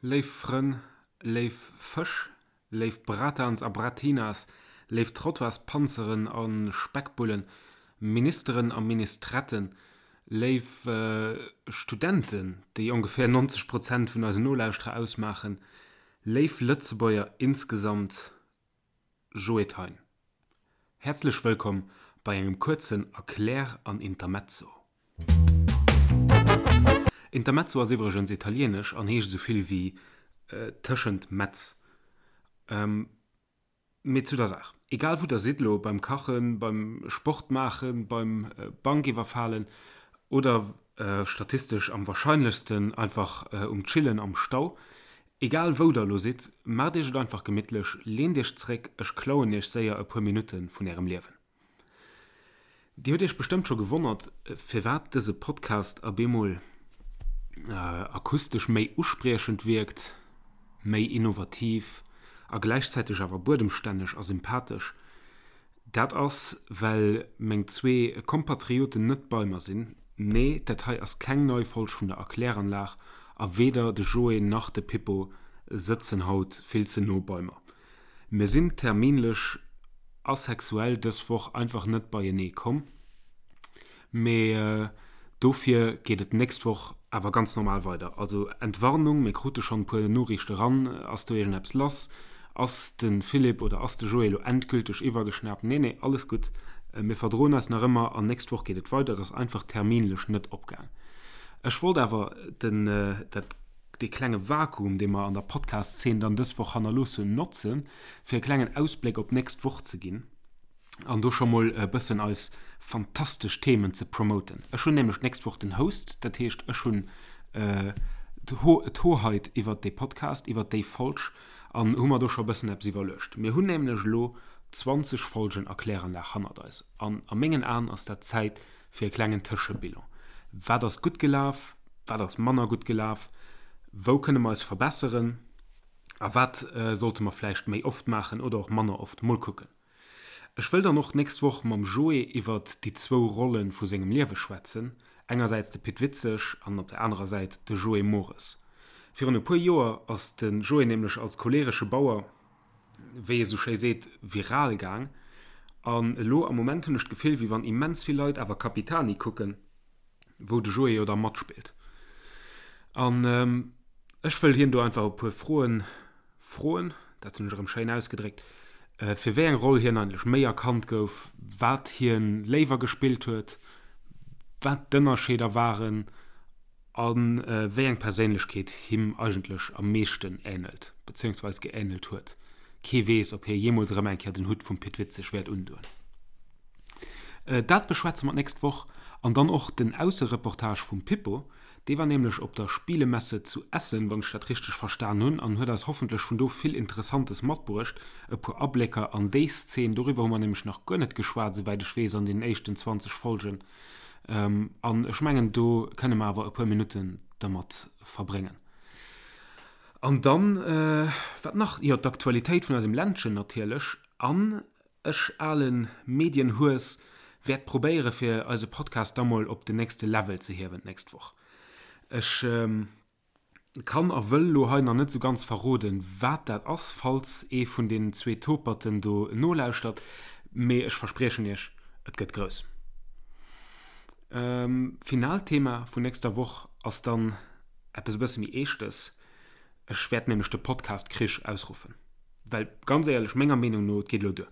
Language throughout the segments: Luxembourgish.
Léif Frënn, léif Fësch, léif Bratans a Bratinas, léif Trottoirspanzeren a Speckbullen, Ministeren a Ministretten, léif Studenten, déi ongeféier 90 Prozent vun eisen Nolauschterer ausmaachen, léif Lëtzebuerger insgesamt, Joe Thein. Häerzlech wëllkomm bei engem kuerzen Erklär an Intermezzo. Intermezzo ass iwwregens italienesch an heescht esou vill wéi tëschent Metz. Mee zu der Saach, Egal wou der sidd elo, beim Kachen, beim Sport maachen, beim Bank iwwerfalen oder statistesch am warscheinlechsten einfach um Chillen am Stau, Egal wou der elo sidd, maacht iech et einfach gemittlech, leent iech zréck, ech klauen iech séier e puer Minutte vun ärem Liewen. Dir hutt iech bestëmmt scho gewonnert, firwat dëse Podcast a bemol akustesch méi uspriechend wierkt, méi innovativ a gläichzäiteg awer buedemstänneg a sympathesch. Dat ass, well meng zwee Kompatrioten net bei mer sinn. Nee, dat hei ass keng nei Folg vun der Erkläranlag a weder de Joé nach de Pippo sëtzen haut vill ze no bei mer. Mir sinn terminlech a sexuell dës Woch einfach net beienee komm. Mee dofir geet et d'nächst Woch awer ganz normal weider. Also Entwarnung, mir krute schonn e puer Noriichte ran. Ass do iergendeppes lass? Ass de Philippe oder ass de Joé elo endgülteg iwwergeschnaapt? Nee, nee, alles gutt. Mir verdroen eis nach ëmmer an nächst Woch geet et weider. Et ass einfach terminlech net opgaang. Ech wollt awer den, dat, dee klenge Vakuum, dee mer an der Podcast-Zeen dann dës Woch hannerlooss hunn, notzen, fir e klengen Ausbléck op d'nächst Woch ze ginn. an do scho mol e bëssen eis fantastesch Themen ze promoten. Ech hunn nämlech d'nächst Woch den Host, dat heescht ech hunn d'Hoheit iwwert dee Podcast, iwwert déi Folg an hu mer do scho e bëssen eppes iwwerluecht. Mir hunn nämlech elo 20 Folgen Erkläranlag hannert eis an a mengen Aen ass dat Zäit fir e klengen Tëschebilan. Wat ass gutt gelaf, wat ass manner gutt gelaf, wou kënne mer eis verbesseren a wat sollte mer vläicht méi oft maachen oder och manner oft? Mol kucken. Ech wëll dann och d'nächst Woch mam Joé iwwert déi zwou Rolle vu sengem Liewe schwätzen, engersäits de Pit Witzeg an op der anerer Säit de Joé Mores. Virun e puer Joer ass de Joé nämlech als choleresche Bauer, wéi ee sou schéi seet, viral gaang. An elo am Moment hunn ech d'Gefill, wéi wann immens vill Leit awer Capitani kucken, wou de Joé jo da matspillt. An ech wëll hien do einfach e puer Froen froen, dat hunn ech erëm schéin ausgedréckt, fir wéi eng Roll hien eigentlech méi erkannt gouf, wat hien léiwer gespillt huet, wat d'Ënnerscheeder waren a wéi eng Perséinlechkeet him eigentlech am meeschten änelt, bezéiungsweis geänelt huet. Kee weess, ob hie jeemools erëm eng Kéier den Hutt vum Pit Witzeg wäert undoen. Dat beschwätze mer d'nächst Woch an dann och den Aussereportage vum Pippo. Dee war nämlech op der Spielemesse zu Essen, wann ech dat richteg verstan hunn, an huet eis hoffentlech vun do vill Interessantes matbruecht, e puer Ablécker an déi Szene. Doriwwer hu mer nämlech nach guer net geschwat, esouwäit ech weess, an deenen éischten 20 Folgen. An ech mengen, do kënne mer awer e puer Minutten dermat verbréngen. An dann, wat nach? Jo, d'Aktualitéit vun eisem Ländchen natierlech. An Ech, alen Medienhues, wäert probéiere fir eise Podcast da mol op den nächste Level ze hiewen d'nächst Woch. Ech kann a wëll lo hei nach net sou ganz verroden, wat dat ass, falls ee vun den zwee Toperten do nolauschtert, mee ech verspriechen iech, et gëtt grouss. Finaalt Thema vun nächster Woch ass dann eppes e bësse méi Eeschtes. Ech wäert nämlech de Podcast Krich ausruffen. Well ganz éierlech, menger Meenung no, et geet elo duer.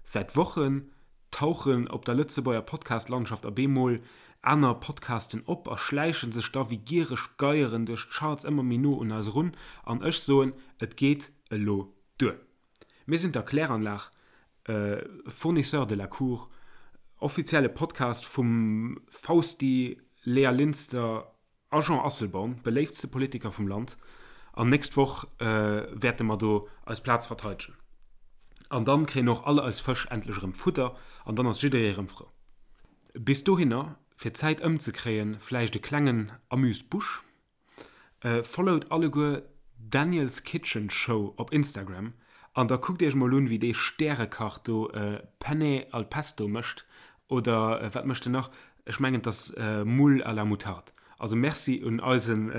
Säit Wochen tauchen op der Lëtzebuerger Podcast-Landschaft a bemol aner Podcasten op a schläiche sech da wéi giereg Geieren duerch d'Charts ëmmer méi no un eis erun. An ech soen, et geet elo duer. Mir sinn d'Erkläranlag, Fournisseur de la Cour, offizielle Podcast vum Fausti, Léa Linster, A Jean Asselborn, beléiftste Politiker vum Land, an nächst Woch wäerte mer do eis Plaz verteidegen. An dann kréien och all eis Fësch endlech erëm Fudder an dann ass jidderee erëm frou. Bis dohinner, fir d'Zäit ëmzekréien, vläicht e klengen Amuse-Bouche, Followt alleguer Daniel's Kitchen Show op Instagram an da kuckt iech mol un, wéi dee Stärekach do Penne al Pesto mécht Oder wat mécht en nach? Ech mengen et ass Moules à la moutarde. Also Merci un eisen.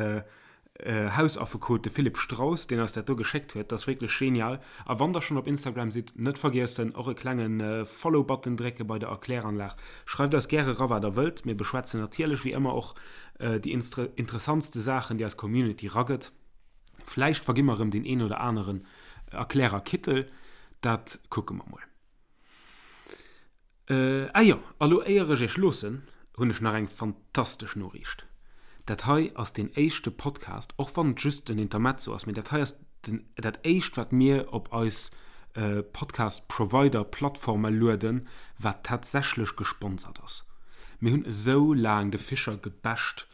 Hausaffekot, de Philippe Straus, deen eis dat do geschéckt huet. Dat ass wierklech genial. A wann der schonn op Instagram sidd, net vergiessen, och e klenge Follow-Button drécke bei der Erkläranlag. Schreift eis gäre ra wat der wëllt. Mir beschwätzen natierlech wéi ëmmer och déi interessantste Saachen, déi eis Community ragëtt. Vläicht vergi mer erëm deen een oder aneren Erklärer-Kittel. Dat kucke mer mol. Ah jo, a lo éier ech iech loossen, hunn ech nach eng fantastesch Noriicht. Dat hei ass deen éischte Podcast, och wann et just en Intermezzo ass, mee dat hei ass den, dat éischt wat mir op eis Podcast Provider Plattforme lueden, wat tatsächlech gesponsert ass. Mir hunn esou laang de Fischer gebasht,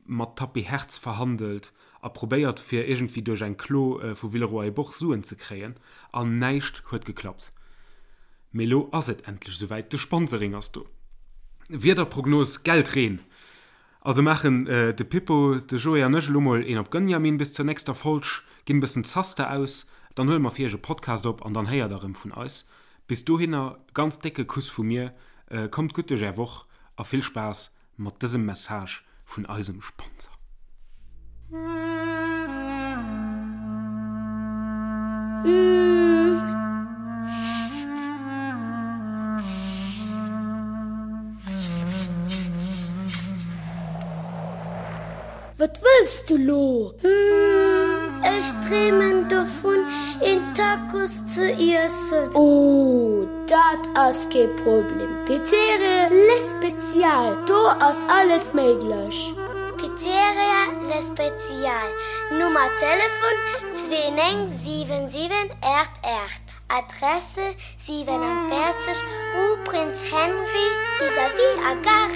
mat Tapis Hertz verhandelt a probéiert fir iergendwéi duerch eng Klo vu Villeroy-et-Boch Suen ze kréien, an näischt huet geklappt. Mee lo ass et endlech esouwäit, de Sponsoring ass do. Wiederprognos, Geldreen! Also maachen de Pippo, de Joé an ech elo mol een op Gönjamin bis zur nächster Folg, ginn e bëssen Zaster aus, dann huele mer fir iech e Podcast op an dann héiert der erëm vun eis. Bis dohinner, ganz décke Kuss vu mir, kommt gutt duerch är Woch a vill Spaass mat dësem Message vun eisem Sponsor. Wat wëlls du lo? Ech dreemen dovun een Tacos ze iessen. Oh, dat ass kee Problem. Pizzeria Le Spezial, do ass alles méiglech. Pizzeria Le Spezial, Nummer Telefon 2977 88, Adresse 47 rue Prince Henri vis-à-vis a Gare.